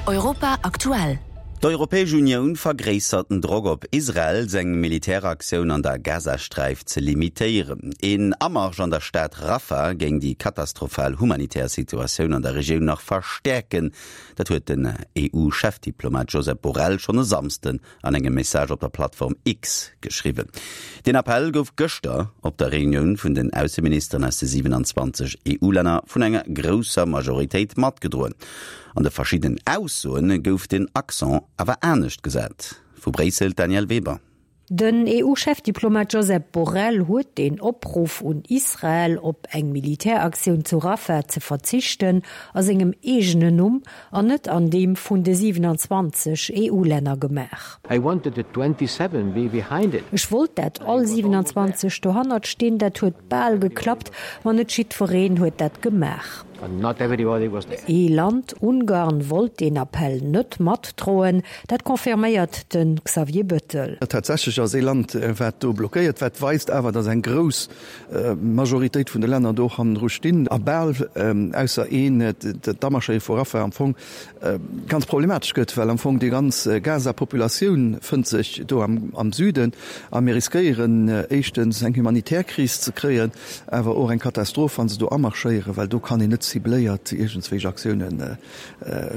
Europa aktuell. D'Europäesch Unioun vergréissert den Drock op Israel, seng Militäraktioun an der Gazasträif ze limitéieren. Een Amarsch an der Stad Rafah géing déi katastrophal humanitär Situatioun an der Regioun nach verstäerken. Dat huet den EU-Chefdiplomat Josep Borrell schonn e Samsden an engem Message op der Plattform X geschriwwen. Deen Appell gouf gëschter op der Reunioun vun den Ausseministeren aus de 27 EU-Länner vun enger grousser Majoritéit matgedroen. An de verschiddenen Aussoe gouf den Accent awer anescht gesat. Vu Bréissel d'Danièle Weber. Den EU-Chefdiplomat Josep Borrell huet den Opruff un Israel, op eng Militäraktioun zu Rafah ze verzichten, a sengem eegenen Numm an net an deem vun de 27 EU-Länner gemaach. Ech wollt dat all 27 dohannert stinn. Dat huet bal geklappt, ma net jiddwereen huet dat gemaach. Ee Land, Ungarn, wollt deen Appell net matdroen. Dat confirméiert de Xavier Bettel. Tatsächlech ass ee Land, wat do blockéiert, wat weist awer, datt eng grouss Majoritéit vun de Länner do och hannendru stinn a bal ausser een, d'Amarschéiere vu Rafah am Fong ganz problematesch gëtt, well am Fong déi ganz Gaza-Populatioun fënnt sech do am Süden a mir riskéieren éischtens eng humanitär Kris ze kréien, awer och eng Katastroph, wa se do amarschéieren, well do kann een net cibléiert iergendswéich Aktiounen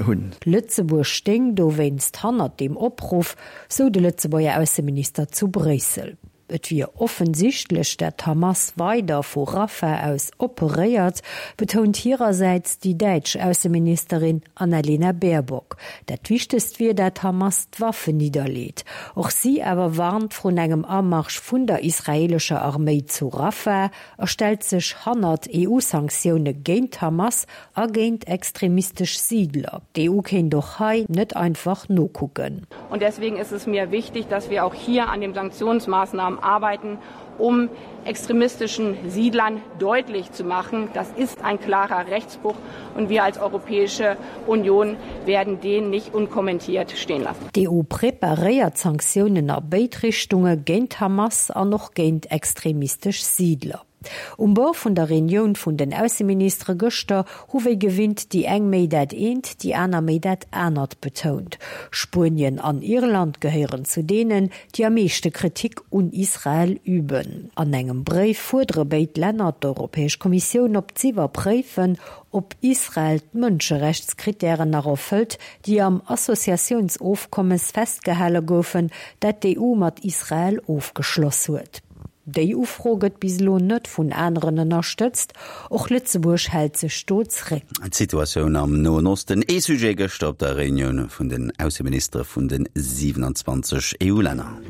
hunn. Lëtzebuerg stéing dowéinst hannert deem Opruff, sou de Lëtzebuerger Ausseminister zu Bréissel. Et wier offensichtlech, dat d'Hamas weider vu Rafah aus operéiert, betount hirersäits déi däitsch Ausseministerin Annalena Baerbock. Dat Wichtegst wier, dat d'Hamas d'Waffen nidderleet. Och si awer warnt vrun engem Amarsch vun der israeelescher Arméi zu Rafah a stellt sech hannert EU-Sanktioune géint d'Hamas a géint extremistesch Siidler. D'EU kéint och hei net einfach nokucken. Und deswegen ist es mir wichtig, dass wir auch hier an den Sanktionsmaßnahmen arbeiten, um extremistischen Siedlern deutlich zu machen, das ist ein klarer Rechtsbruch und wir als Europäische Union werden den nicht unkommentiert stehen lassen. D'EU preparéiert Sanktiounen a béid Richtunge, géint d'Hamas an och géint extremistesch Siidler. Um Bord vun der Reunioun vun den Ausseministere gëschter hu wéi gewinnt déi eng méi dat eent, déi aner méi dat anert betount. Spuenien an Irland gehéieren zu deenen, déi am meeschte Kritik un Israel üben. An engem Bréif fuerdere béid Länner d'Europäesch Kommissioun op z'iwwerpréifen, ob Israel d'Mënscherechtskrittären nach erfëllt, déi am Associatiounsofkommes festgehale goufen, dat d'EU mat Israel ofgeschloss huet. Déi Ufro gëtt bis elo net vun aneren ënnerstëtzt. Och Lëtzebuerg hält sech do zréck. D'Situatioun am Noen Osten, ee Sujet gëschter op der Reunioun vun den Ausseministere vun de 27 EU-Länner.